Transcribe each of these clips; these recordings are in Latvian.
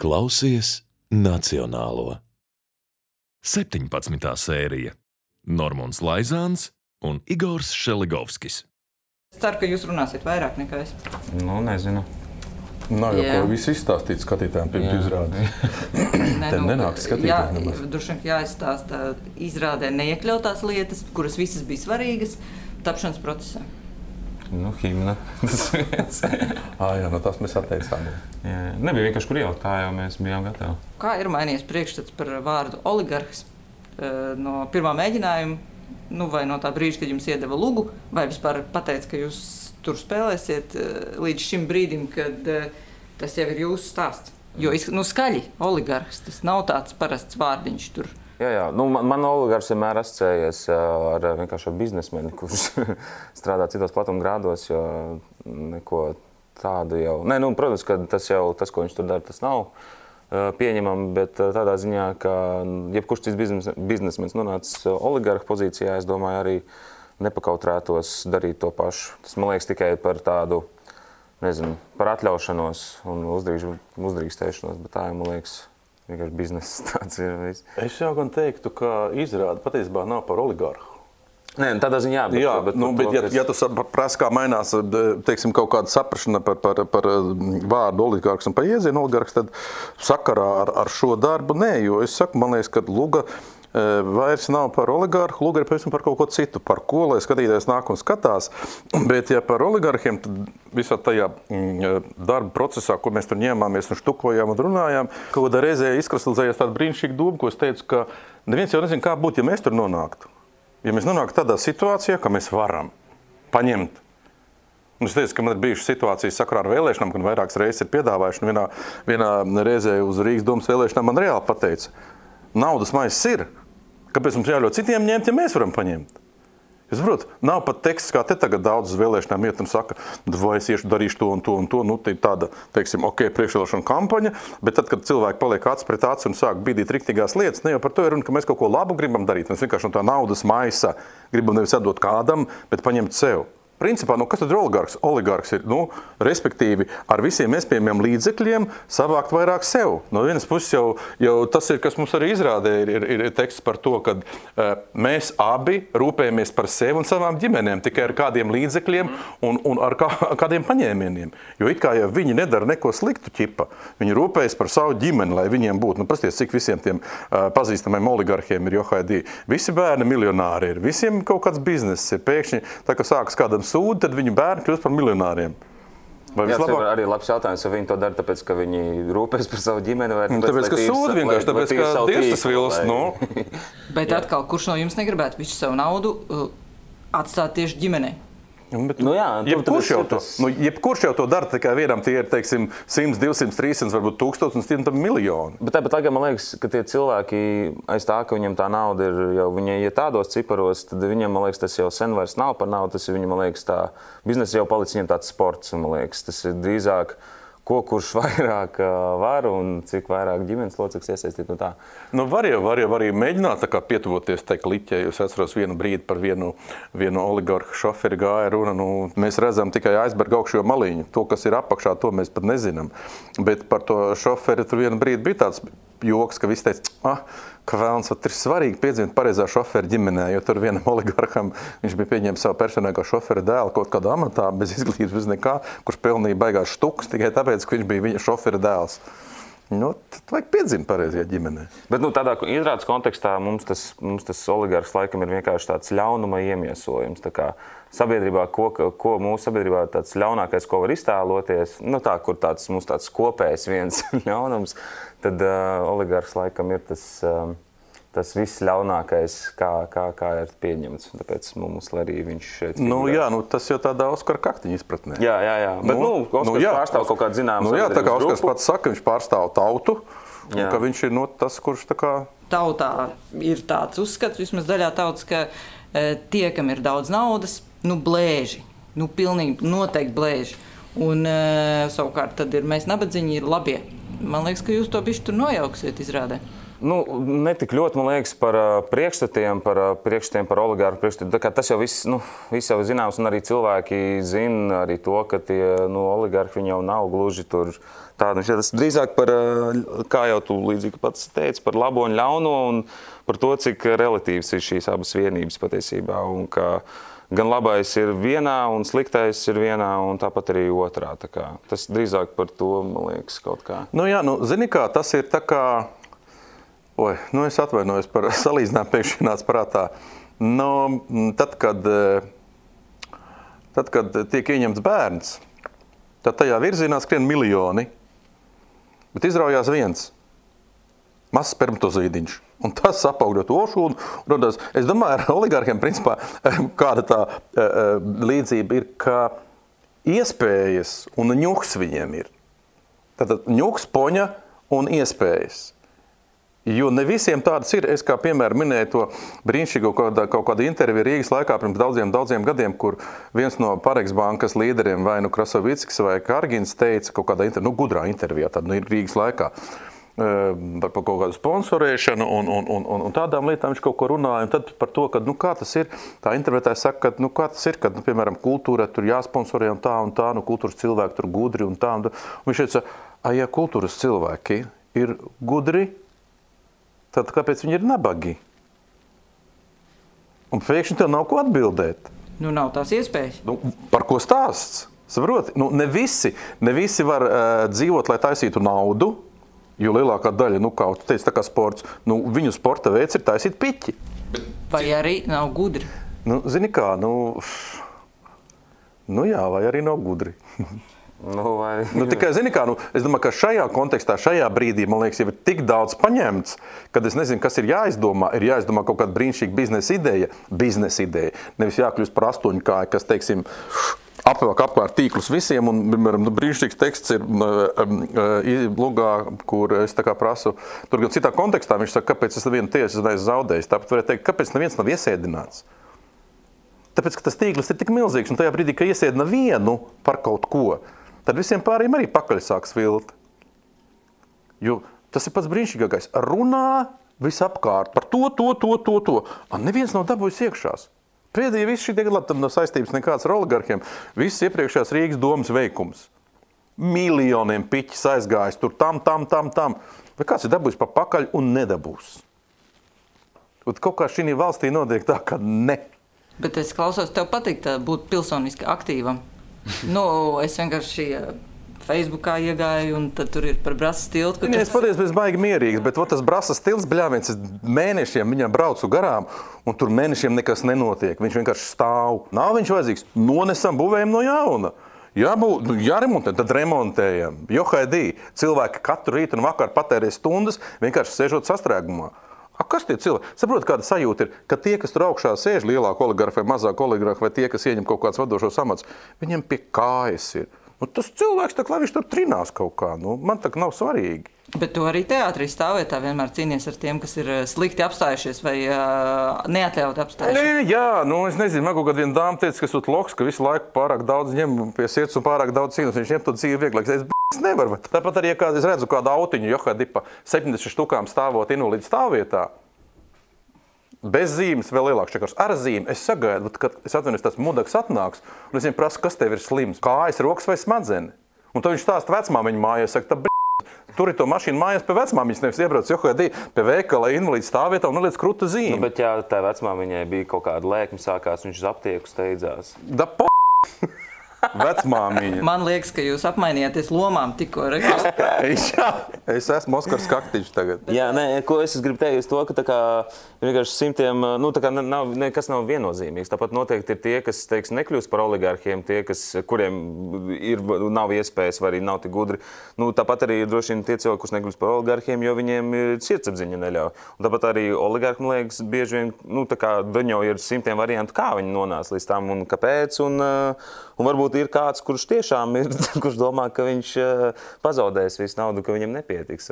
Klausies Nacionālo. 17. sērija. Normons Laizāns un Igors Šeligovskis. Es ceru, ka jūs runāsiet vairāk nekā es. Nu, nezinu. Nav jau ko visu izstāstīt skatītājiem pirms izrādes. Te nenāk skatītājiem nemaz. Droši vien jāizstāsta izrādē neiekļautās lietas, kuras visas bija svarīgas tapšanas procesā. Nu, himna. Jā, no tās mēs atteicām. Nebija vienkārši kur ielikt, tā jau mēs bijām gatavi. Kā ir mainījies priekšstats par vārdu oligarhs no pirmā mēģinājuma, vai no tā brīža, kad jums iedeva lugu, vai vispār pateica, ka jūs tur spēlēsiet līdz šim brīdim, kad tas jau ir jūsu stāsts? Jo skaļi oligarhs, tas nav tāds parasts vārdiņš tur. Jā. Man oligarhs vienmēr asociējies ar vienkārši ar biznesmeni, kurš strādā citos platumgrādos, jo neko tādu jau... Protams, ka tas, ko viņš tur dara, tas nav pieņemami, bet tādā ziņā, ka jebkurš cits biznesmenis nonācis oligarha pozīcijā, es domāju, arī nepakautrētos darīt to pašu. Tas, man liekas, tikai par tādu, par atļaušanos un uzdrīkstēšanos, bet tā jau, man liekas, vienkārši bizness tāds ir viss. Es jau gan teiktu, ka izrāde patiesībā nav par oligarhu. Nē, tādā ziņā, bet ja tu prasa, kā mainās, teiksim, kaut kāda saprašana par vārdu oligarhs un par iezienu oligarhs, tad sakarā ar šo darbu nē, jo es saku, man liekas, ka luga vairs nav par oligarhu, luga ir par kaut ko citu, par ko, lai skatītājs nāk un skatās, bet ja par oligarhiem, tad visā tajā darba procesā, ko mēs tur ņēmāmies un štukojām un runājām, kaut kādā reizē izkristalizējās tāda brīnišķīga doma, ko es teicu, ka neviens jau nezin, kā būtu, ja mēs tur nonāktu. Ja mēs nonāktu tādā situācijā, ka mēs varam paņemt. Un es teicu, ka man ir bijušas situācijas sakarā ar vēlēšanām, kad vairākas reizes ir piedāvājuši, un vienā reizē uz Rīgas domas vēlēšanām man reāli pateica, naudas maizes ir, kāpēc mums jāļauj citiem ņemt, ja mēs varam paņemt? Es saprotu, nav pat teksts, kā te tagad daudz uz vēlēšanām iet un saka, vai es darīšu to un to un to, tā ir tāda, teiksim, priekšvēlēšana kampaņa, bet tad, kad cilvēki paliek acis pret aci un sāk bīdīt riktīgās lietas, ne jau par to ir runa, ka mēs kaut ko labu gribam darīt, mēs vienkārši no tā naudas maisa gribam nevis atdot kādam, bet paņemt sev. Principā, kas tad ir oligarhs? Oligarhs ir, respektīvi, ar visiem iespējamiem līdzekļiem savākt vairāk sev. No vienas puses jau tas ir, kas mums arī izrādē, ir teksts par to, ka mēs abi rūpējamies par sevi un savām ģimenēm, tikai ar kādiem līdzekļiem un ar kādiem paņēmieniem. Jo it kā jau viņi nedara neko sliktu ķipa. Viņi rūpējas par savu ģimeni, lai viņiem būtu. Pasties, cik visiem tiem pazīstamiem oligarhiem ir johaidī. Visi bērni miljonāri ir, visiem kaut kāds bizness ir. Pēkšņi, tā kā sākas kādam sūdi, tad viņu bērni kļūst par miljonāriem. Tas ir arī labs jautājums, vai viņi to dara tāpēc, ka viņi rūpēs par savu ģimeni, vai tāpēc, ka sūdi vienkārši, tāpēc, ka Dievs tas vilst, Bet atkal, kurš no jums negribētu visu savu naudu atstāt tieši ģimenei? Jebkurš jau to dara, tikai vienam tie ir, teiksim, 100, 200, 300, varbūt 1000 un 100 miljoni. Bet tāpat laikā man liekas, ka tie cilvēki aiz tā, ka viņam tā nauda ir jau, viņi ja tādos ciparos, tad viņam, man liekas, tas jau sen vairs nav par naudu, tas ir viņam, man liekas, tā biznesa jau palicis viņam tāds sports, un man liekas, tas ir drīzāk kurš vairāk var un cik vairāk ģimenes locekļus iesaistīt no tā. Var jau arī mēģināt tā kā pietuvoties tai kliķei. Es atceros vienu brīdi par vienu oligarhu šoferi gāja runa. Mēs redzam tikai aizberga augšējo maliņu. To, kas ir apakšā, to mēs pat nezinām. Bet par to šoferi tur vienu brīdi bija tāds joks, ka visi teica, ka vēlns ir svarīgi piedzimt pareizā šofera ģimenē, jo tur vienam oligarham viņš bija pieņēmis savu personīgo šofera dēlu kaut kādā amatā, bez izglītības, bez nekā, kurš pelnīja baigās štukas tikai tāpēc, ka viņš bija viņa šofera dēls. Tad vajag piedzimt pareizajā ģimenē. Bet tādā izrādes kontekstā mums tas oligarhs laikam ir vienkārši tāds ļaunuma iemiesojums. Tā kā sabiedrībā, ko mūsu sabiedrībā tāds ļaunākais, ko var iztēloties, kur mums tāds kopējs viens ļaunums, tad oligarhs laikam ir tas viss ļaunākais, kā ir pieņemts. Tāpēc mums arī viņš šeit tas jau tādā Oskara Kaktiņa izpratnē. Jā. Bet, Oskars pārstāv kaut kādu zināmu tā kā grupu. Oskars pats saka, viņš pārstāv tautu, un ka viņš ir tas, kurš tā kā... Tautā ir tāds uzskats, vismaz daļā tautas, ka tie, kam ir daudz naudas, blēži. Pilnīgi noteikti blēži. Un savukārt tad ir mēs nabadzīņi, ir labie. Man liekas, ka jūs to bišķi tur nojauksiet izrādē. Ne tik ļoti, man liekas, par priekšstatiem par oligārhu priekšstatiem. Tas jau viss jau zināms, un arī cilvēki zina arī to, ka tie oligārhi viņi jau nav gluži tur tādi. Tas drīzāk par, kā jau tu līdzīgi pats teici, par labo un ļauno un par to, cik relatīvs ir šīs abas vienības patiesībā. Un ka gan labais ir vienā un sliktais ir vienā un tāpat arī otrā. Tas drīzāk par to, man liekas, kaut kā. Zini kā, tas ir tā kā... es atvainojos par salīdzinājumu pēkšņi nāc prātā. Tad, kad tiek ieņemts bērns, tad tajā virzienā skrien miljoni, bet izraujās viens mazs spermatozīdiņš. Un tas apaugļot ošu un rodās. Es domāju, ar oligārhiem principā kāda tā līdzība ir, ka iespējas un ņuks viņiem ir. Tātad ņuks, poņa un iespējas. Jo ne visiem tādas ir. Es kā piemēram minēju to brīnišķīgo kaut kādu interviju Rīgas laikā pirms daudziem gadiem, kur viens no Parex bankas līderiem, vai Krasovickis vai Kargins teica kaut kādā gudrā intervijā, tad Rīgas laikā, par kaut kādu sponsorēšanu un tādām lietām viņš kaut ko runāja. Un tad par to, ka, kā tas ir, tā intervētājs saka, ka, kā tas ir, kad, piemēram, kultūra tur jāsponsorē un tā, kultūras cilvēki tur gudri un tā. Un viņš teica, ja kultūras cilvēki ir gudri, tad kāpēc viņi ir nabagi? Un pēkšņi tev nav ko atbildēt. Nav tās iespējas. Par ko stāsts? Saproti? Ne visi var dzīvot, lai taisītu naudu, jo lielākā daļa, kā tu teici, tā kā sports, viņu sporta veids ir taisīt piķi. Vai arī nav gudri? Zini kā, jā, vai arī nav gudri. Tikai, zini kā, es domāju, ka šajā kontekstā, šajā brīdī, man liekas, jau ir tik daudz paņemts, kad es nezinu, kas ir jāizdomā kaut kāda brīnišķīga biznesa ideja. Nevis jākļūst par astoņkāju, kas, teiksim, apkārt tīklus visiem, un, piemēram, brīnišķīgs teksts ir lugā, kur es tā kā prasu, tur gan citā kontekstā, viņš saka, kāpēc es nevienu tiesu neesmu zaudējis. Tāpēc varētu teikt, kāpēc neviens nav iesēdināts. Tāpēc, ka tas tīkls ir tik milzīgs, un tajā brīdī, ka iesēdina vienu par kaut ko, tad visiem pārējiem arī pakaļ sāk svilt. Jo tas ir pats brīnišķīgākais. Runā visapkārt par to. Neviens nav dabūjis iekšās. Pēdējie visi šī gadu tam nav saistības nekāds ar oligarhiem. Viss iepriekšējās Rīgas domas veikums. Miljoniem piķis aizgājis tur tam. Vai kāds ir dabūjis pa pakaļ un nedabūs? Un kaut kā šī valstī notiek tā, ka ne. Bet es klausos, tev patīk būt pilsoniski aktīvam. Es vienkārši Facebookā iegāju, un tad tur ir par Brasas tiltu. Es patiesībā esmu baigi mierīgs, bet tas Brasas tilts, bļāviens, es mēnešiem viņam braucu garām, un tur mēnešiem nekas nenotiek. Viņš vienkārši stāv. Nav viņš vajadzīgs. Nonesam, būvējam no jauna. Jāremontē, tad remontējam. Johaidī, cilvēki katru rītu un vakaru patērē stundas, vienkārši sēžot sastrēgumā. Kas tie cilvēki? Saprot, kāda sajūta ir, ka tie, kas tur augšā sēž, lielāka oligarha vai mazāka oligarha, vai tie, kas ieņem kaut kāds vadošos amats, viņiem pie kājas ir. Tas cilvēks, lai viņš tur trinās kaut kā, man tā nav svarīgi. Bet tu arī teātrī stāvvietā vienmēr cīnies ar tiem, kas ir slikti apstājušies vai neatļauti apstājušies. Es nezinu, man kaut kāda viena dāma teica, ka esot loks, ka visu laiku pārāk daudz ņem pie sirds un pārāk daudz cīnās. Viņš ņem to dzīvi vieglāk. Es nevaru. Tāpat arī, ja es redzu kādu autiņu, Johaidī pa 70 štukām stāvot invalīdu stāvvietā, bez zīmes vēl lielāks čekars. Ar zīmi es sagaidu, kad es atvainojos, tas mudaks atnāks, un es viņam prasu, kas tev ir slims, kājas, rokas vai smadzeni. Un tad viņš stāsta vecmāmiņu mājās, saka, tur ir to mašīnu mājās pie vecmāmiņas, nevis iebrauc Johaidī pie veikala invalīdu stāvvietā un neliec kruta zīmi. Bet ja tā vecmāmiņai bija kaut kāda lēkme sākās, viņš uz aptieku steidzās. Vecmāmiņa. Man liekas, ka jūs apmainījāties lomām tikko. Jā, es esmu Oskars Kaktiņš tagad. Jā, ko es gribu teikt, to, ka tā kā vienkārši simtiem, tā kā nekas nav viennozīmīgs. Tāpat noteikti ir tie, kas, nekļūst par oligarhiem, tie, kuriem nav iespējas vai arī nav tik gudri. Tāpat arī droši vien tie cilvēki, kurus nekļūst par oligarhiem, jo viņiem sirdsapziņa neļauj. Un tāpat arī oligarhi, man liekas, bieži vien, tā kā daņo ir simtiem variantu, kā viņi nonāca līdz tam un kāpēc. Un varbūt ir kāds, kurš tiešām ir, kurš domā, ka viņš pazaudēs visu naudu, ka viņam nepietiks.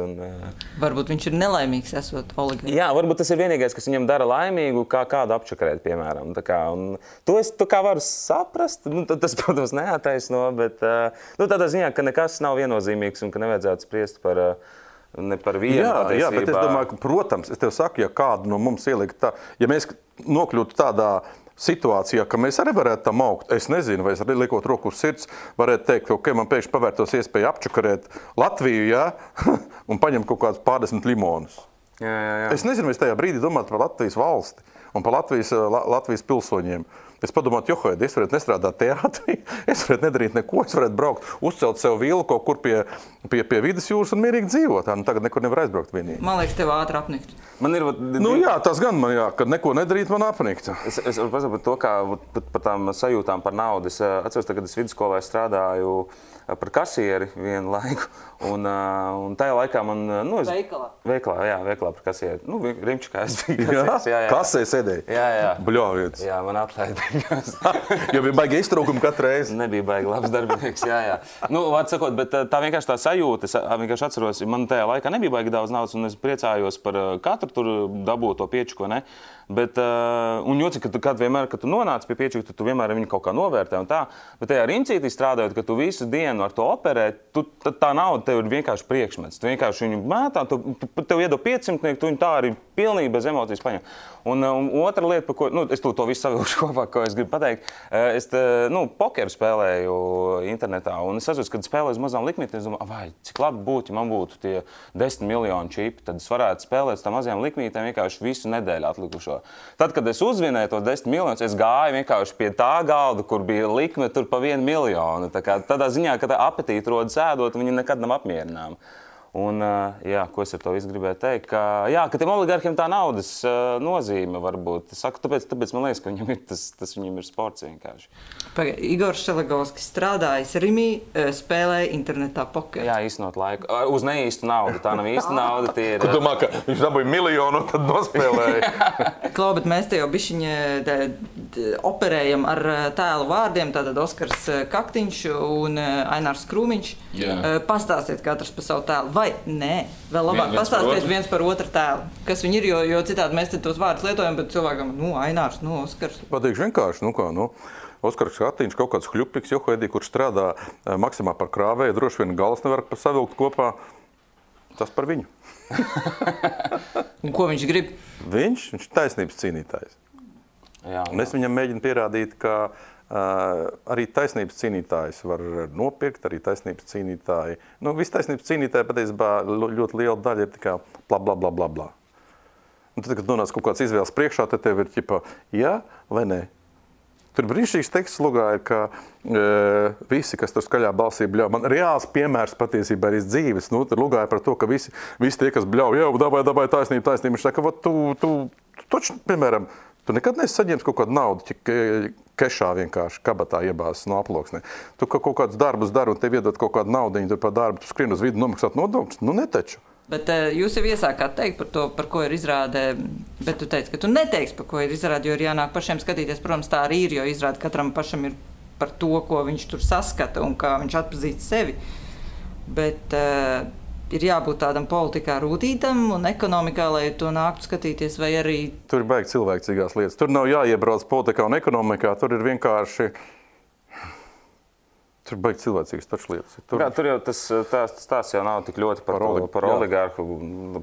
Varbūt viņš ir nelaimīgs, esot oligarhs. Jā, varbūt tas ir vienīgais, kas viņam dara laimīgu, kā kādu apčakarēt, piemēram. To es varu saprast. Tas, protams, neataisno, bet tādā ziņā, ka nekas nav viennozīmīgs un ka nevajadzētu spriest par ne par vienu patiesībā. Jā, bet es domāju, ka, protams, es tev saku, ja kādu no mums ielikt tā, ja mēs nokļūtu tādā situācijā, ka mēs arī varētu tam augt, es nezinu, vai es arī liekot roku uz sirds, varētu teikt, ka man pēkšņi pavērtos iespēja apčakarēt Latviju, jā, un paņemt kaut kādus pārdesmit limonus. Jā. Es nezinu, vai es tajā brīdī domātu par Latvijas valsti un par Latvijas pilsoņiem. Es padomātu, es varētu nestrādāt teātrī, es varētu nedarīt neko, es varētu braukt, uzcelt sev vilu kaut kur pie vidus jūras un mierīgi dzīvot. Tagad nekur nevar aizbraukt vienīgi. Man liekas, tev ātri apnikt. Man ir... Jā, tas gan man, kad neko nedarīt, man apnikt. Es varu pasaka par to, kā par tām sajūtām par naudu. Es atceros, kad es vidusskolā strādāju par kasieri vienu laiku. Un tajā laikā man... Veikalā par kasieri. Rimčikā es biju kasieri. Jā. Kasē sēdēji? Jā. Bļāvietis. Jā, man atlaida. Jo bija baigi iztrūkumi katru reizi. Nebija baigi labs darbinieks, jā. Vārds sakot, bet tā vienkārši tā sajūta, es vienkārši atceros, man tajā laikā nebija baigi daudz naudas, un es priecājos par katru tur dabūto piečuko, ne? Bet, un jocīgi, kad vienmēr, kad tu nonāc pie piečuka, tu vienmēr viņu kaut kā novērtē un tā, bet tajā rincītī strādājot, kad tu visu dienu ar to operē, tā nauda tev ir vienkārši priekšmets. Tu vienkārši viņu mētā, tev iedod 500, tu viņu tā arī pilnīgi bez emocijas paņem. Un otra lieta, par ko, es to visu savilkšu kopā, ko es gribu pateikt, es pokeru spēlēju internetā, un es atceros, kad spēlēju uz mazām likmītēm, es domāju, vai, cik labi būtu, ja man būtu tie 10 miljoni čipi, tad es varētu spēlēt uz tām mazajām likmītēm vienkārši visu nedēļu atlikušo. Tad, kad es uzvinēju to 10 miljonus, es gāju vienkārši pie tā galda, kur bija likme tur pa 1 miljonu. Tādā ziņā, ka tā apetīte rodas ēdot, viņi nekad nav apmierināmi. Un, ko es ar to visu gribēju teikt, ka tiem oligarkiem tā naudas nozīme varbūt. Es saku, tāpēc man liekas, ka viņam ir tas viņam ir sports vienkārši. Igors Šelegovskis strādājis Rimī, spēlēja internetā pokeru. Jā, īstenot laiku. Uz neīstu naudu. Tā nav īsta nauda. Tie ir... Tu domā, ka viņš dabūja miljonu un tad nospēlēja? Klau, bet mēs te jau bišķiņi operējam ar tēlu vārdiem, tātad Oskars Kaktiņš un Ainārs Krūmiņš. Pastāstiet katrs par savu tēlu. Vai nē, vēl labāk pastāstiet viens par otru tēlu. Kas viņi ir, jo citādi mēs te tos vārdus lietojam, bet cilvēkam, Ainārs, Oskars. Pateikšu vienkārši, Oskars Kaktiņš kaut kāds hļupiks, kurš strādā Maksimā par krāvēju, droši vien galas nevar savilkt kopā. Tas par viņu. Un ko viņš grib? Viņš ir taisnības cīnītājs. Un es viņam mēģinu pierādīt, ka arī taisnības cīnītājs var nopirkt, arī taisnības cīnītāji. Visi taisnības cīnītāji patiesībā ļoti liela daļa ir tikai bla. Un tad, kad nonāc kaut kāds izvēles priekšā, tad tev ir ķipa jā vai nē. Tur brīnišķīgs teksts lugā ir, ka visi, kas tur skaļā balsī bļauj, man reāls piemērs patiesībā ir iz dzīves. Tur lugāja par to, ka visi tie, kas bļauj, dabāj taisnība. Viņš saka, tu toču, piemēram, tu nekad neesi saņēmis kaut kādu naudu, kešā vienkārši kabatā iebāzes no aploksnē. Tu kaut kādus darbus dari un tev iedod kaut kādu naudiņu tur par darbu, tu skrien uz vidu nomaksāt nodokļus, netaču. Bet jūs jau iesākāt teikt par to, par ko ir izrāde, bet tu teici, ka tu neteiksi, par ko ir izrāde, jo ir jānāk pašiem skatīties. Protams, tā arī ir, jo izrāde katram pašam ir par to, ko viņš tur saskata un kā viņš atpazīst sevi. Bet ir jābūt tādam politikā rūtītam un ekonomikā, lai to nāktu skatīties, vai arī... Tur ir baigi cilvēcīgās lietas. Tur nav jāiebrauc politikā un ekonomikā, tur ir vienkārši... Tur baigi cilvēcīgas taču lietas. Tur jau tas jau nav tik ļoti par oligarhu.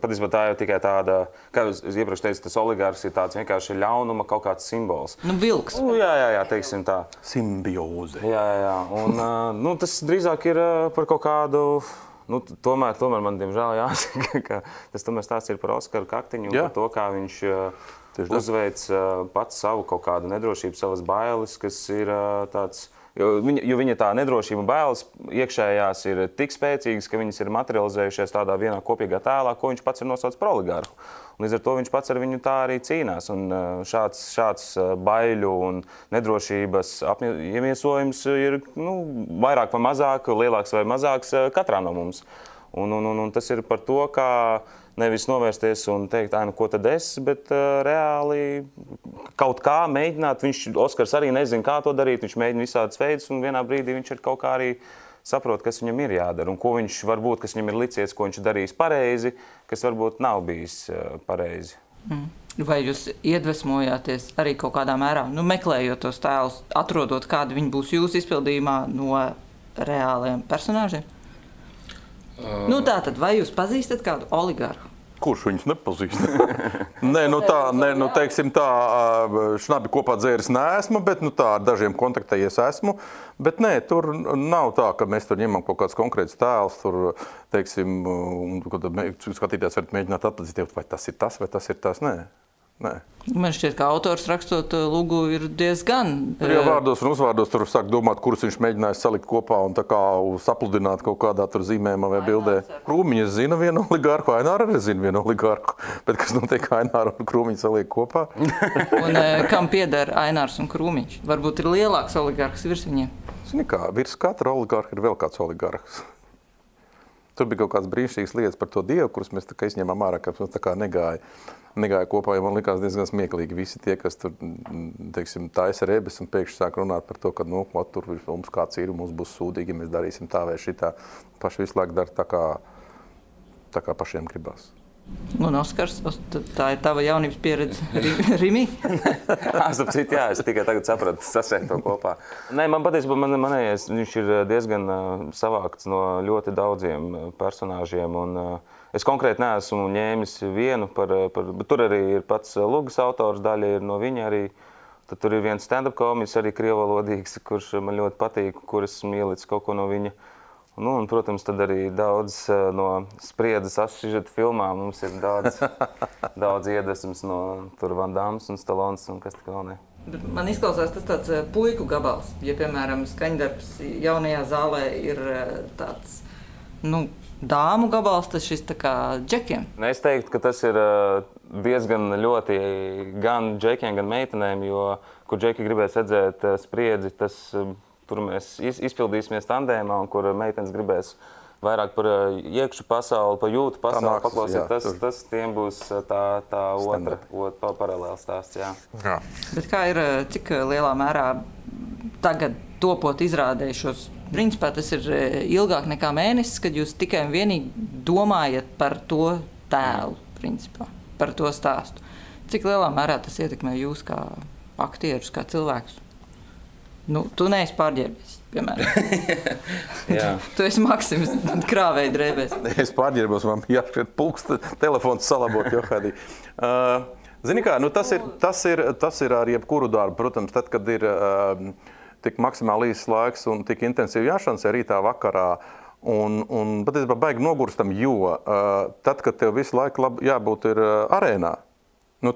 Patiesībā tā jau tikai tāda, kā jūs iepriekš teicat, tas oligarhs ir tāds vienkārši ļaunuma kaut kāds simbols. Vilks. Jā, teiksim tā. Simbioze. Jā. Un tas drīzāk ir par kaut kādu... Tomēr man, diemžēl, jāsaka, ka tas tomēr stāsts ir par Oskaru Kaktiņu un par to, kā viņš uzveic pats savu kaut kādu nedrošību, savas bailes, kas ir tāds... Jo viņa tā nedrošība bailes iekšējās ir tik spēcīgas, ka viņas ir materializējušies tādā vienā kopīgā tēlā, ko viņš pats ir nosaucis par oligarhu. Un līdz ar to viņš pats ar viņu tā arī cīnās. Un šāds baiļu un nedrošības iemiesojums ir vairāk vai mazāk, lielāks vai mazāks katrā no mums. Un tas ir par to, kā nevis novērsties un teikt, ko tad es, bet reāli kaut kā mēģināt. Oskars arī nezina, kā to darīt, viņš mēģina visādas veidus, un vienā brīdī viņš ir kaut kā arī saprot, kas viņam ir jādara, un ko viņš varbūt, kas viņam ir licies, ko viņš darījis pareizi, kas varbūt nav bijis pareizi. Vai jūs iedvesmojāties arī kaut kādā mērā, meklējot tos tēlus, atrodot, kādi viņi būs jūsu izpildījumā no reāliem personāžiem? Tātad, vai jūs pazīstat kādu oligarhu? Kurš viņus nepazīst? Teiksim tā, šnabi kopā dzēris neesmu, bet tā ar dažiem kontaktējies esmu. Bet nē, tur nav tā, ka mēs tur ņemam kaut kāds konkrēts tēls, tur, teiksim, skatīties, varat mēģināt atpazīt, vai tas ir tas, vai tas ir tas, nē. Man šķiet, ka autors rakstot lūgu ir diezgan... Tur jau vārdos un uzvārdos tur sāk domāt, kurus viņš mēģināja salikt kopā un tā kā sapludināt kaut kādā tur zīmējumā vai bildē. Krūmiņas zina vienu oligarhu, Aināra arī zina vienu oligarhu. Bet kas notiek, Aināra un Krūmiņš saliek kopā? Un kam pieder Ainārs un Krūmiņš? Varbūt ir lielāks oligarhs virs viņiem? Zini kā, virs katra oligarha ir vēl kāds oligarhs. Tur bija kaut kāds brīnišķīgs lietas par to dievu, kurus mēs tā kā izņēmām ārā, ka tā kā negāja kopā, jo man likās diezgan smieklīgi visi tie, kas tur, teiksim, taisa rebes un pēkšņi sāk runāt par to, ka, tur mums kāds ir un mums būs sūdīgi, ja mēs darīsim tā vai šitā. Paši visu laiku dara tā kā pašiem gribās. Un Oskars, tā ir tava jaunības pieredze Rimi? Es tikai tagad sapratu, sasēt to kopā. Nē, man patiesībā manējais, viņš ir diezgan savākts no ļoti daudziem personāžiem. Un es konkrēti neesmu ņēmis vienu, bet tur arī ir pats Lugas autors, daļa ir no viņa arī. Tad tur ir viens stand-up komiķis, arī krievalodīgs, kurš man ļoti patīk, kuras mīlīts kaut ko no viņa. Un, protams, tad arī daudz no spriedzes asžeta filmām. Mums ir daudz iedvesmas no tur Van Dams un Stallons un kas tik vēl ne. Man izklausās tas tāds puiku gabals. Ja, piemēram, skaņdarbs jaunajā zālē ir tāds, dāmu gabals, tas šis tā kā džekiem. Es teiktu, ka tas ir diezgan ļoti gan džekiem, gan meitenēm, jo, kur džeki gribēs redzēt spriedzi, tas... Tur mēs izpildīsimies tandēmā, un kur meitenes gribēs vairāk par iekšu pasauli, par jūtu pasauli paklausīt. Tas tiem būs tā otra paralēla stāsts. Jā. Bet kā ir, cik lielā mērā tagad topot izrādējušos? Principā tas ir ilgāk nekā mēnesis, kad jūs tikai un vienīgi domājat par to tēlu, principā, par to stāstu. Cik lielā mērā tas ietekmē jūs kā aktierus, kā cilvēkus? Tu neesi pārģērbies, piemēram. Tu esi Maksims krāvēja drēbēs. Es pārģērbos, man jāšķiet pulks, telefons salabot, Johādī. Zini kā, tas ir ar jebkuru darbu. Protams, tad, kad ir tik maksimāli īsts laiks un tik intensīvi jāšansē rītā vakarā, un patiesībā baigi nogurstam, jo tad, kad tev visu laiku jābūt ir arēnā,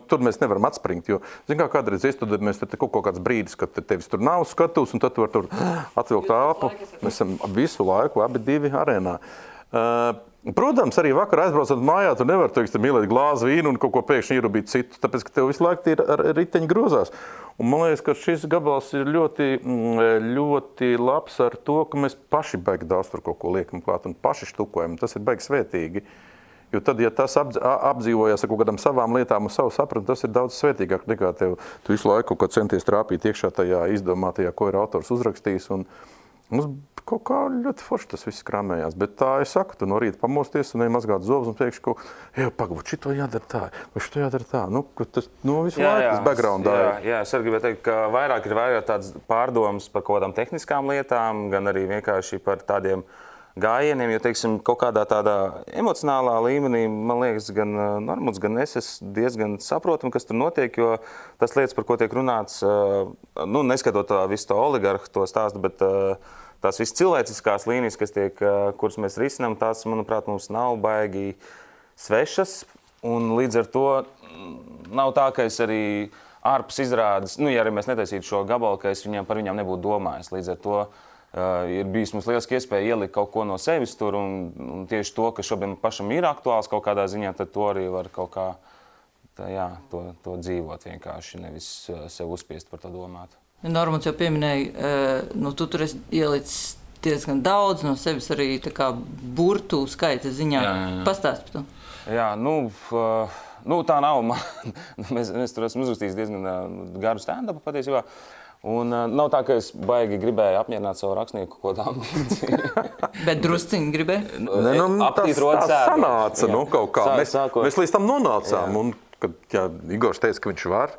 tur mēs nevaram atspringt, jo, kādreiz iestudēt, mēs tur kaut kāds brīdis, kad tevis tur nav skatus, un tad tu var tur atvilkt āpu. Mēs esam visu laiku, abi divi arēnā. Protams, arī vakar aizbraucot mājā, tu nevar, ielēt glāzi vīnu un kaut ko pēkšņi ierubīt citu, tāpēc, ka tev visu laiku ir riteņi grozās. Un man liekas, ka šis gabals ir ļoti labs ar to, ka mēs paši baigi daudz tur kaut ko liekam klāt un paši štukojam. Tas ir baigi svētīgi. Jo tad, ja tas apdzīvojas ar kaut kādām savām lietām un savu sapratu, tas ir daudz svētīgāk nekā tu visu laiku kaut kā centies trāpīt iekšā tajā izdomātajā, ko ir autors uzrakstījis. Un mums kaut kā ļoti forši tas viss krāmējās. Bet tā es saku, tu no rīta pamosties un mazgāt zobus un teikšu, pagabūt, šito jādara tā, vai šito jādara tā. Tas visu laiku tas backgroundā. Jā, es arī gribēju teikt, ka vairāk ir tāds pārdomas par kaut kādām tehniskām lietām, gan arī vienkārši par tādiem gājieniem, jo, teiksim, kaut kādā tādā emocionālā līmenī, man liekas, gan Normunds, gan es diezgan saprotam, kas tur notiek, jo tas lietas, par ko tiek runāts, neskatot visu to oligarhu, to stāstu, bet tās visas cilvēciskās līnijas, kuras mēs risinām, tās, manuprāt, mums nav baigi svešas, un līdz ar to nav tā, ka es arī ārpus izrādes, ja arī mēs netaisītu šo gabalu, ka es par viņām nebūtu domājis, līdz ar to ir bijis mums lieliski iespēja ielikt kaut ko no sevis tur, un tieši to, kas šobrīd pašam ir aktuāls kaut kādā ziņā, tad to arī var kaut kā to dzīvot vienkārši, nevis sev uzspiest par to domāt. Normunds jau pieminēja, tu tur esi ielicis diezgan daudz no sevis arī tā kā burtu skaita ziņā. Pastāst par to. Jā, tā nav. Mēs tur esam uzrakstījis diezgan garu stand-upu patiesībā. Un nav tā, ka es baigi gribēju apmierināt savu rakstnieku kaut kādā ambīciju. Bet drusciņi gribēju? Tas sanāca kaut kā. Mēs līdz tam nonācām. Un, kad Igors teica, ka viņš var,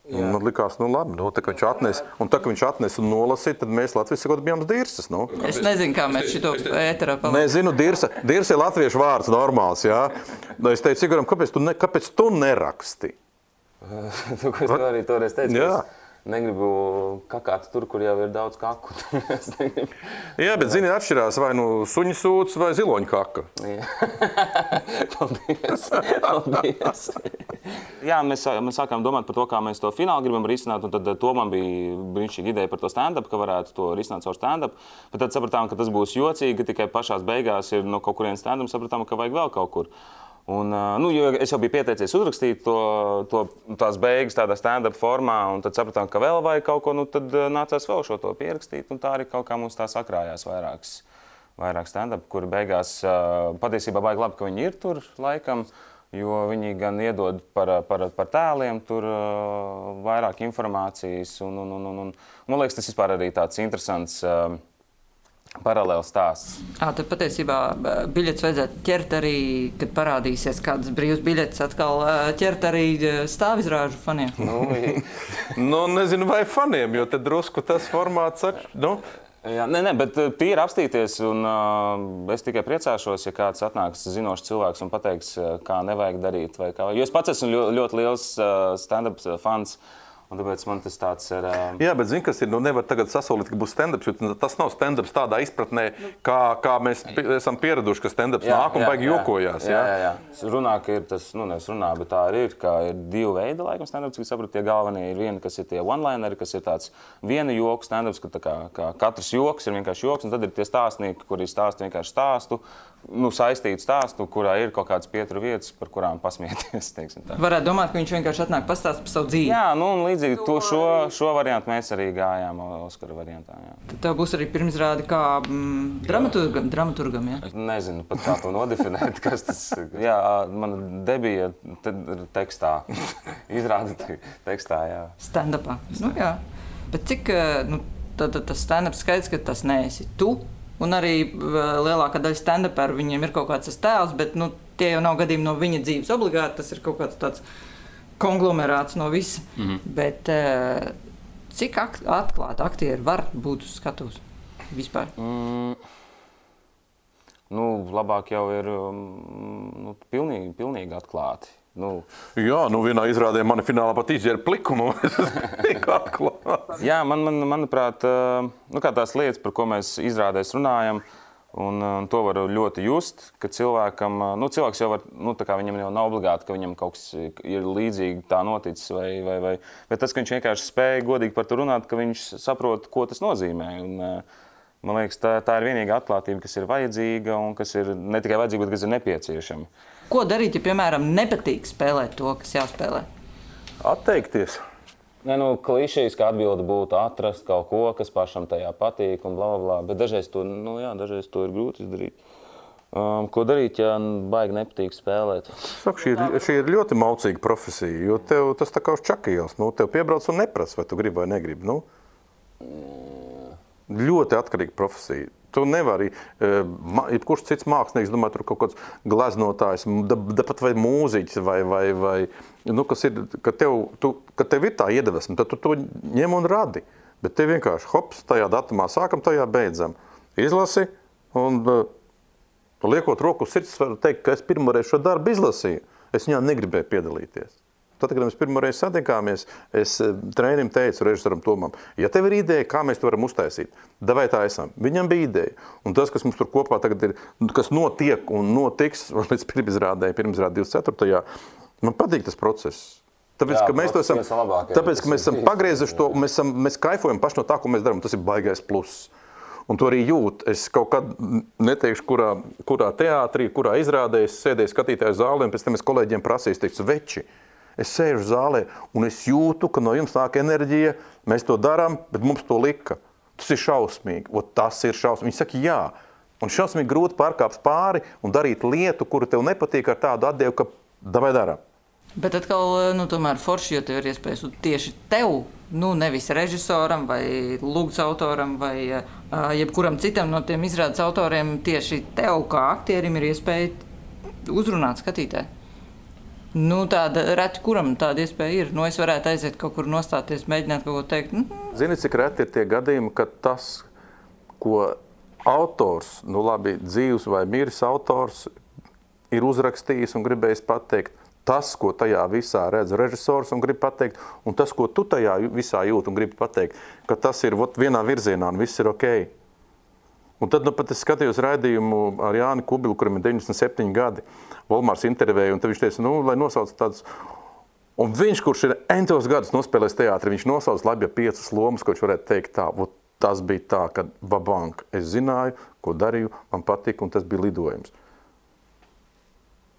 Un likās, labi, tā, ka viņš atnesa un nolasīja, tad mēs Latvijas sakot bijām dirsas. Es nezinu, kā mēs šito ēterā palikam. Nezinu, dirsa ir latviešu vārds normāls, jā. Es teicu, Igoram, kāpēc tu neraksti? Tu, ko es arī toreiz teicu, jā. Negribu kakāt tur, kur jau ir daudz kaku. Jā, bet zini, atšķirās vai suņu sūds vai ziloņu kaka. Paldies. Jā, mēs sākām domāt par to, kā mēs to finālu gribam risināt, un tad to man bija brīnišķīga ideja par to stand-up, ka varētu to risināt caur stand-up. Bet tad sapratām, ka tas būs jocīgi, ka tikai pašās beigās ir no kaut kurien stand-up, sapratām, ka vajag vēl kaut kur. Un, jo es jau biju pieteicies uzrakstīt tās beigas tādā stand-up formā, un tad sapratām, ka vēl vajag kaut ko, tad nācās vēl šo to pierakstīt, un tā arī kaut kā mums tā sakrājās vairāk stand-up, kuri beigās patiesībā baigi labi, ka viņi ir tur laikam, jo viņi gan iedod par tēliem tur vairāk informācijas, un man liekas, tas vispār arī tāds interesants paralēls stāsts. Tad patiesībā biļetes vajadzētu ķert arī, kad parādīsies kādas brīvas biļetes, atkal ķert arī stāvizrāžu faniem. Nezinu, vai faniem, jo te drusku tas formāts Jā, nē, bet tīri apstīties, un es tikai priecāšos, ja kāds atnāks zinošs cilvēks un pateiks, kā nevajag darīt. Vai kā. Jo es pats esmu ļoti liels stand-up fans. Un tāpēc man tas tāds ir... Jā, bet zini, kas ir, nevar tagad sasolīt, ka būs stand-ups, jo tas nav stand-ups tādā izpratnē, kā mēs esam pieraduši, ka stand-ups nāk un baigi jokojās. Jā. Runā, ka ir tas, nevis runā, bet tā arī ir, ka ir divi veidi, laikam, stand-ups, ka sapratu, tie galvenie ir vieni, kas ir tie one-lineri, kas ir tāds viena joku stand-ups, ka kā katrs joks ir vienkārši joks, un tad ir tie stāstnieki, kuri stāsta vienkārši stāstu, saistītu stāstu, kurā ir kaut kādas pietura vietas, par kurām pasmieties, teiksim tā. Varētu domāt, ka viņš vienkārši atnāk pastāst par savu dzīvi. Jā, un līdzīgi šo variantu mēs arī gājām Oskara variantā, jā. Tad tev būs arī pirmizrāde kā dramaturgam, jā? Es nezinu pat kā to nodefinēt, kas tas... Jā, mana debija tekstā. Izrāde tekstā, jā. Stand-upā. Jā. Bet cik, tas stand-ups skaidrs, ka tas neesi tu? Un arī lielākā daļa stand-upēru viņiem ir kaut kāds tas tēls, bet tie jau nav gadījumi no viņa dzīves obligāti, tas ir kaut kāds tāds konglomerāts no visa. Bet cik atklāti aktieri var būt uz skatuves vispār? Labāk jau ir pilnīgi atklāti. Jā, vienā izrādē mani finālā pat izģēra pliku, es pilnīgi atklāti. Jā, manuprāt, kā tās lietas, par ko mēs izrādēs runājam, un to var ļoti just, ka cilvēkam, cilvēks jau var, tā kā viņam jau nav obligāti, ka viņam kaut kas ir līdzīgi tā noticis, vai bet tas, ka viņš vienkārši spēja godīgi par to runāt, ka viņš saprot, ko tas nozīmē. Un, man liekas, tā ir vienīga atklātība, kas ir vajadzīga un kas ir ne tikai vajadzīga, bet kas ir nepieciešama. Ko darīt, ja, piemēram, nepatīk spēlēt to, kas jāspēlē? Atteikties. Klišejas, kā atbilde būtu atrast kaut ko, kas pašam tajā patīk un blablabla, bet dažreiz to ir grūti izdarīt. Ko darīt, ja baigi nepatīk spēlēt? Saku, šī ir ļoti maucīga profesija, jo tev tas tā kā uz čakījās. Tev piebrauc un neprasa, vai tu gribi vai negribi. Ļoti atkarīga profesija. Tu nevari, jebkurš cits mākslinieks, domāju, tur kaut kāds gleznotājs, pat vai mūziķis, vai kas ir, ka tev ir tā iedvesma, tad tu to ņem un radi. Bet tev vienkārši, hops, tajā datumā sākam, tajā beidzam. Izlasi, un liekot roku uz sirds, varu teikt, ka es pirmoreiz šo darbu izlasīju. Es viņā negribēju piedalīties. Tad, kad mēs pirmoreiz satikāmies, es trenerim teicu, režisoram Tomam, ja tev ir ideja, kā mēs to varam uztaisīt, davai tā esam. Viņam bija ideja. Un tas, kas mums tur kopā tagad ir, kas notiek un notiks līdz pirmizrādē 24. Man patīk tas process. Tāpēc, ka mēs to esam, tāpēc, ka mēs esam pagriezuši to, mēs kaifojam paši no tā, ko mēs darām. Tas ir baigais pluss. Un to arī jūt. Es kaut kad neteikšu, kurā teātrī, kurā izrādē, es sēdēju skatītāju zālē, un pēc tam es kolēģiem prasīju, teicu, veči, es sēžu zālē, un es jūtu, ka no jums nāk enerģija, mēs to darām, bet mums to lika. Tas ir šausmīgi, tas ir šausmīgi. Viņi saka, jā. Un šausmīgi grūti pārkāpt pāri un darīt lietu, kuru tev nepatīk ar tādu atdevu, ka davai darām. Bet atkal, tomēr forši, jo tev ir iespējas tieši tev, nevis režisoram vai lūgts autoram vai jebkuram citam no tiem izrādes autoriem, tieši tev kā aktierim ir iespēja uzrunāt skatītāju. Nu, tāda reti, kuram tāda iespēja ir. Nu, es varētu aiziet kaut kur nostāties, mēģināt kaut ko teikt. Zini, cik reti ir tie gadījumi, ka tas, ko autors, nu labi, dzīvs vai miris autors, ir uzrakstījis un gribējis pateikt, tas, ko tajā visā redz režisors un grib pateikt, un tas, ko tu tajā visā jūt un gribi pateikt, ka tas ir vienā virzienā un viss ir okei. Un tad pat es skatījos raidījumu ar Jāni Kubilu, kuram ir 97 gadi, Volmārs intervēja, un tad viņš teica, lai nosauc tādus. Un viņš, kurš ir entos gadus nospēlējis teātri, viņš nosauc labi 5 lomas, ko viņš varētu teikt tā. Tas bija tā, ka vabank, es zināju, ko darīju, man patika, un tas bija lidojums.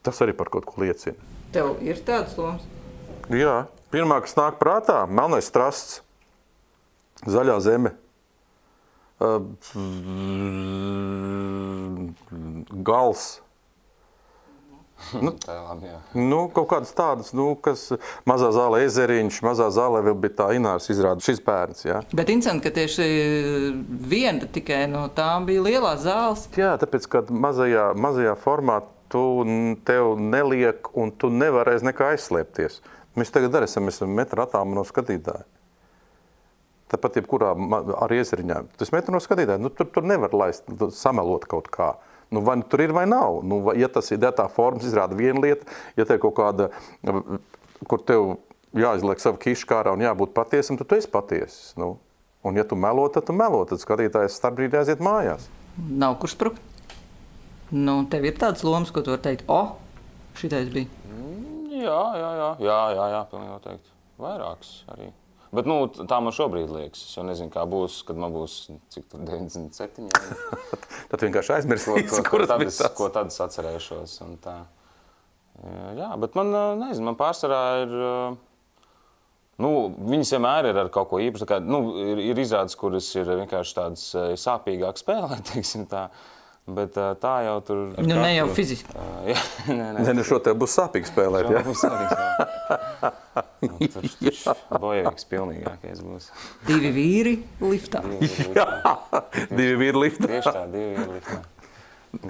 Tas arī par kaut ko liecina. Tev ir tādas lomas? Jā. Pirmā, kas nāk prātā, Melnais strasts, Zaļā zeme. Gals. Kaut kādas tādas, kas Mazā zāle Ezeriņš, Mazā zālē vēl bija tā Ināras izrāda, šis bērns, jā. Bet interesanti, ka tieši viena tikai no tām bija lielās zāles. Jā, tāpēc, ka mazajā formā tev neliek un tu nevarēsi nekā aizslēpties. Mēs tagad arī esam metra attālumā no skatītāja. Tāpat jebkurā arī Ezeriņā. Tas metru no skatītāja, tur nevar laist, samelot kaut kā. Vai tur ir vai nav. Ja tas ir tā formas izrāda viena lieta, ja te ir kaut kāda, kur tev jāizliek savu kišu kārā un jābūt patiesam, tad tu esi patiesis. Un ja tu melo, tad skatītājs starpbrīdī aiziet mājās. Nav kur sprukt. Tev ir tādas lomas, ko tu vari teikt, šitais bija. Jā, pilnīgi noteikti. Vairāks arī. Bet tā man šobrīd liekas. Es jau nezinu, kā būs, kad man būs, cik tur 97. Tad vienkārši aizmirsīs, kuras bija tas. Ko tad es atcerēšos. Un tā. Jā, bet man, nezinu, man pārsvarā ir, viņas vienmēr ir ar kaut ko īpašu. Ir izrādes, kuras ir vienkārši tādas sāpīgāk spēlēt, teiksim tā. Bet tā jau tur... Ne jau fiziski. Ne, šo tev būs sāpīgi spēlēt, jā? Būs sāpīgi spēlēt. Tur bojavīgs pilnīgākais būs. 2 vīri liftā. Jā, 2 vīri liftā. Tieši tā, 2 vīri liftā.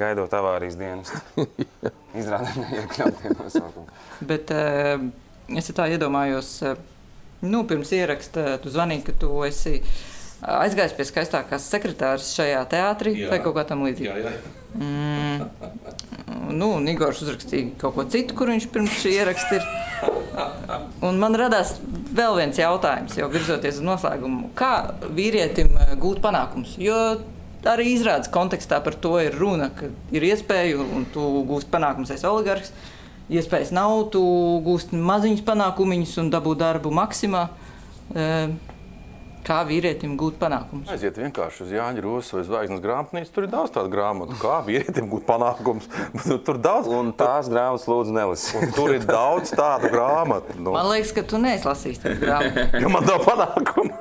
Gaidot avārijas dienestu. Izrādē neiekļautie nosaukumi. Bet es tā iedomājos, pirms ieraksta tu zvanīji, ka tu esi... aizgājis pie skaistākās sekretāras šajā teātrī vai kaut kā tam līdzīgi. Jā. Igors uzrakstīja kaut ko citu, kur viņš pirms šī ieraksta ir. Un man radās vēl viens jautājums, jau virzoties uz noslēgumu. Kā vīrietim gūt panākums? Jo arī izrādes kontekstā par to ir runa, ka ir iespēja un tu gūst panākums, esi oligarhs. Iespējas nav, tu gūst maziņus panākumiņus un dabū darbu Maksimā. Kā vīrietim gūt panākumus? Aiziet vienkārši uz Jāņa Rosas vai Zvaigznes grāmatnīcu, tur ir daudz tādu grāmatu. Kā vīrietim gūt panākumus? Tur daudz. Un tās grāmatas lūdzu nelasi. Tur ir daudz tādu grāmatu. Man liekas, ka tu neesi lasījis tādu grāmatu. Jo man nav panākumu.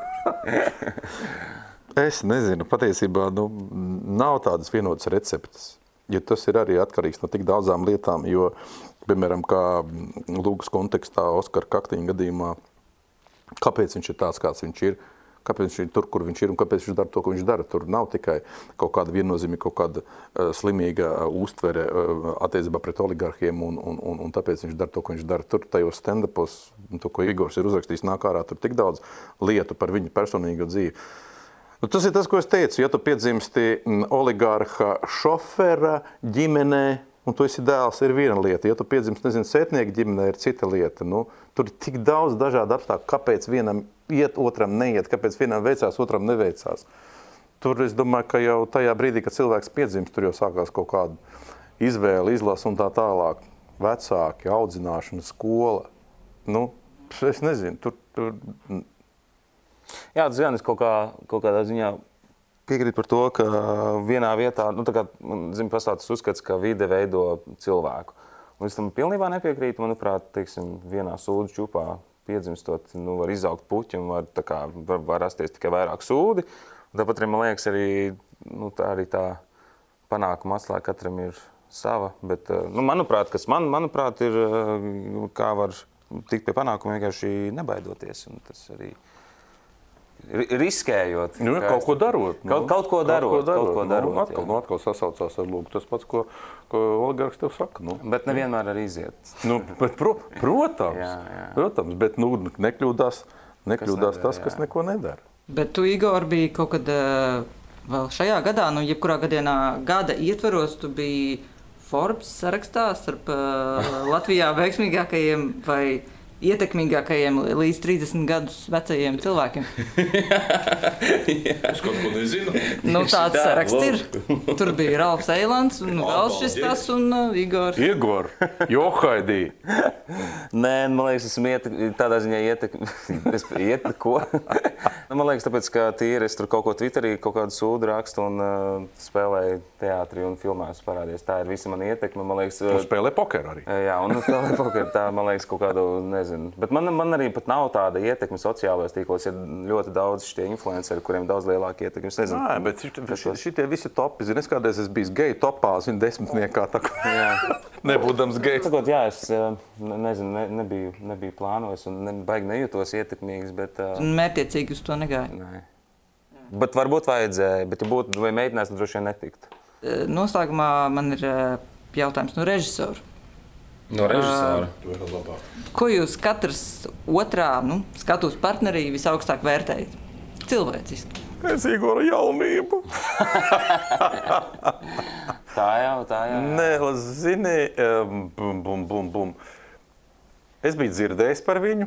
Es nezinu, patiesībā nav tādas vienotas receptes. Jo tas ir arī atkarīgs no tik daudzām lietām, jo, piemēram, kā Lūgas kontekstā Oskara Kaktiņa gadījumā, kāpēc viņš ir tāds, kāds viņš ir, kāpēc viņš ir tur, kur viņš ir un kāpēc viņš dara to, ko viņš dara. Tur nav tikai kaut kāda viennozīmīga, kaut kāda slimīga uztvere attiecībā pret oligarhiem un tāpēc viņš dara to, ko viņš dara. Tur tajos stand-upos, to, ko Igors ir uzrakstījis, nāk ārā, tur tik daudz lietu par viņu personīgo dzīvi. Tas ir tas, ko es teicu. Ja tu piedzimsti oligarha šofera ģimenē, un tu esi dēls, ir viena lieta. Ja tu piedzimsti, sētnieka ģimenē, ir cita lieta. Tur ir tik daudz dažādu apstākļu, kāpēc vienam iet, otram neiet, kāpēc vienam veicās, otram neveicās. Tur es domāju, ka jau tajā brīdī, kad cilvēks piedzimst, tur jau sākās kaut kāda izvēle, izlasa un tā tālāk. Vecāki, audzināšana, skola. Es nezinu, tur... Jā, tas gan es kaut kādā ziņā piekrīt par to, ka vienā vietā, pastāv tas uzskats, ka vide veido cilvēku. Un es tam pilnībā nepiekrītu, manuprāt, vienā sūdu čupā piedzimstot, var izaugt puķi un var rasties tikai vairāk sūdi. Un tāpat arī, man liekas, arī tā panākuma atslēga katram ir sava, bet, manuprāt, ir, kā var tikt pie panākuma vienkārši nebaidoties, un tas arī riskējot. Kaut ko darot. Kaut ko darot. Atkal sasaucās ar lūgu. Tas pats, ko oligarks tev saka. Bet nevienmēr arī iziet. Protams, bet nekļūdās tas, kas neko nedara. Bet tu, Igor, biji kaut kad vēl šajā gadā, jebkurā gada ietvaros, tu biji Forbes sarakstā starp Latvijā veiksmīgākajiem vai ietekmīgākajiem līdz 30 gadus vecajiem cilvēkiem. Es kaut ko nezinu. Tāds saraksts ir. Tur bija Ralfs Eilands un vēl šis tas un Igors. Igor, Johaidī. Nē, man liekas, esmu tādā ziņā ko? Man liekas, tāpēc, ka tīri es tur kaut ko Twitterī, kaut kādu sūdu rakstu un spēlēju teātrī un filmās parādies. Tā ir visa mana ietekme. Man liekas, un spēlē pokeru arī. Jā, un spēlē pokeru. Tā, man liekas, kaut kādu, nezinu. Bet man arī pat nav tāda ietekme sociālajos tīklos. Ir ļoti daudz šitie influenceri, kuriem daudz lielāka ietekme. Es nezinu. Nē, bet šitie visi topi. Zini, es kādreiz esmu bijis geju topā, zinu, 10. Tā kā nebūdams gejs. Sakot, jā, es nezinu, nebiju plānojis un baigi nejūtos ietekmīgs, bet... Mērķiecīgi uz to negāju. Nē. Bet varbūt vajadzēja, bet ja būtu vai mēģinās, tad droši vien netiktu. Noslēgumā man ir jautājums no režisora. No režisora? To ir labāk. Ko jūs katrs otrā skatuves partnerī visaugstāk vērtējat? Cilvēciski. Es Igora jaunību. Tā jau. Nē, zini, Es biju dzirdējis par viņu.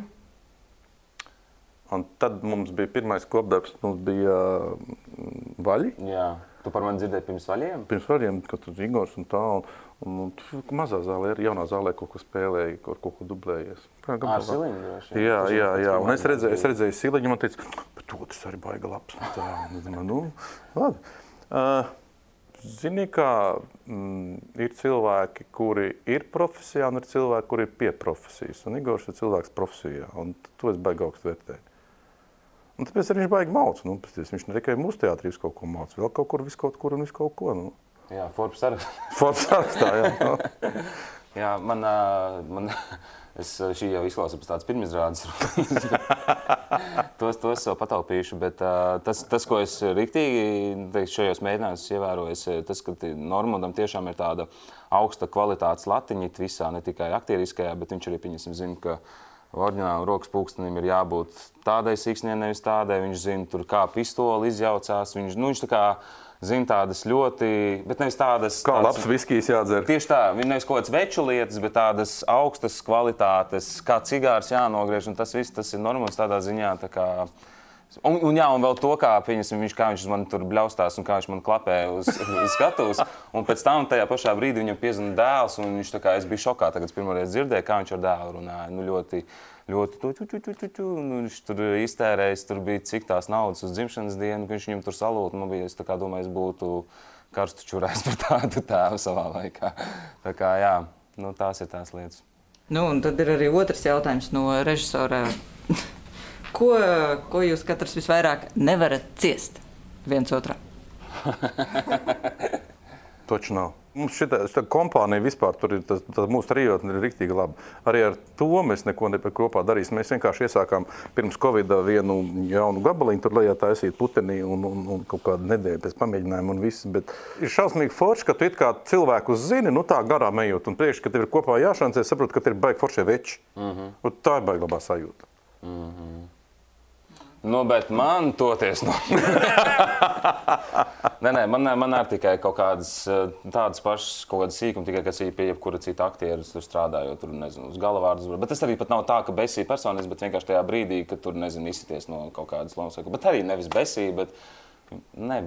Un tad mums bija pirmais kopdarbs, mums bija vaļi. Jā, tu par mani dzirdēji pirms vaļiem? Pirms vaļiem, kad tur Igors un tā. Un mazā zālē, jaunā zālē kaut ko spēlēja, kaut ko dublējies. Ar Siliņu droši? Jā. Un es redzēju Siliņu, man teica, bet otrs arī baiga labs. Labi. Zini, kā ir cilvēki, kuri ir profesijā, un ir cilvēki, kuri ir pie profesijas. Un Igors ir cilvēks profesijā, un to es baigi augstu vērtēju. Un tāpēc arī viņš baigi mauc. Viņš ne tikai mūsu teātrī kaut ko mauc, vēl kaut kur, viskaut kur un viskaut ko. Jā, Forbes sarakstā. Forbes sarakstā, jā. Jā, šī jau izklausās pēc tādas pirmizrādes. Tos jau pataupīšu, bet tas, ko es riktīgi šajos mēģinājumos ievēroju, tas, ka Normundam tiešām ir tāda augsta kvalitātes latiņa visā, ne tikai aktieriskajā, bet viņš arī zina, ka oriģināli rokas pulkstenim ir jābūt tādai siksnē, nevis tādai. Viņš zina, tur kā pistoli izjaucās. Viņš tā kā zina tādas ļoti, bet nevis tādas... Kā labs viskijs jādzer. Tieši tā, nevis kaut kāds veču lietas, bet tādas augstas kvalitātes, kā cigārs jānogriež, un tas viss, tas ir Normunds tādā ziņā, tā kā... Un vēl to, kā viņš uz mani tur bļaustās un kā viņš man klapē uz skatuves. Un pēc tam tajā pašā brīdī viņam piezvana dēls, un viņš tā kā, es biju šokā, tagad pirmoreiz dzirdēju, kā viņš ar dēlu runāja. Ļoti viņš tur iztērējis, tur bija cik tās naudas uz dzimšanas dienu, ka viņš viņam tur salūta. Man bija, es tā kā domāju, es būtu karstu čurājis par tādu tēvu savā laikā. Tā kā, jā, tās ir tās lietas. Un tad ir arī otrs jautājums no režisora. Ko jūs katrs visvairāk nevarat ciest viens otrā? Toči nav. Mums šitā kompānija vispār, tur ir tas mūsu trijotne ir riktīgi labi. Arī ar to mēs neko kopā darīsim. Mēs vienkārši iesākām pirms Covida vienu jaunu gabaliņu, tur lejā taisīt putenī un kaut kādu nedēļu pēc pamēģinājumu un viss. Bet ir šausmīgi forši, ka tu it kā cilvēkus zini, tā garām ejot. Un priekš, ka tev ir kopā jāšancē, saprotu, ka tev ir baigi foršie veči. Un tā ir baigi labā sajūta. Bet man toties Nē, man arī tikai kaut kādas tādas pašas kaut kādas sīkumi, tikai kas ir pie jebkura cita aktiera tur strādājot, tur, nezinu, uz galavārdus. Bet tas arī pat nav tā, ka besī personis, bet vienkārši tajā brīdī, kad tur, nezinu, izsities no kaut kādas lomas. Bet arī nevis besī, bet nē.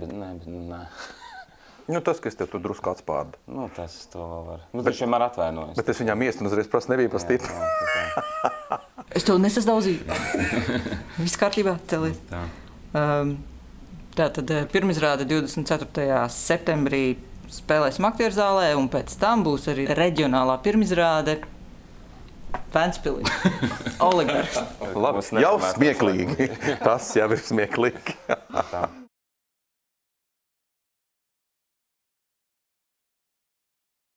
Tas, ka es tev tur drusku atspārdu. Tas to vēl var. Viņš vienmēr atvainojas. Bet es viņām iesnu uzreiz prasu, nebija pa stipri. Es tev nesasdaudzīju. Viss kārtībā, celies. Tātad pirmizrāde 24. septembrī spēlēsim aktieru zālē, un pēc tam būs arī reģionālā pirmizrāde Ventspilī. Oligarhs. Labi, jau smieklīgi. Tas jau ir smieklīgi.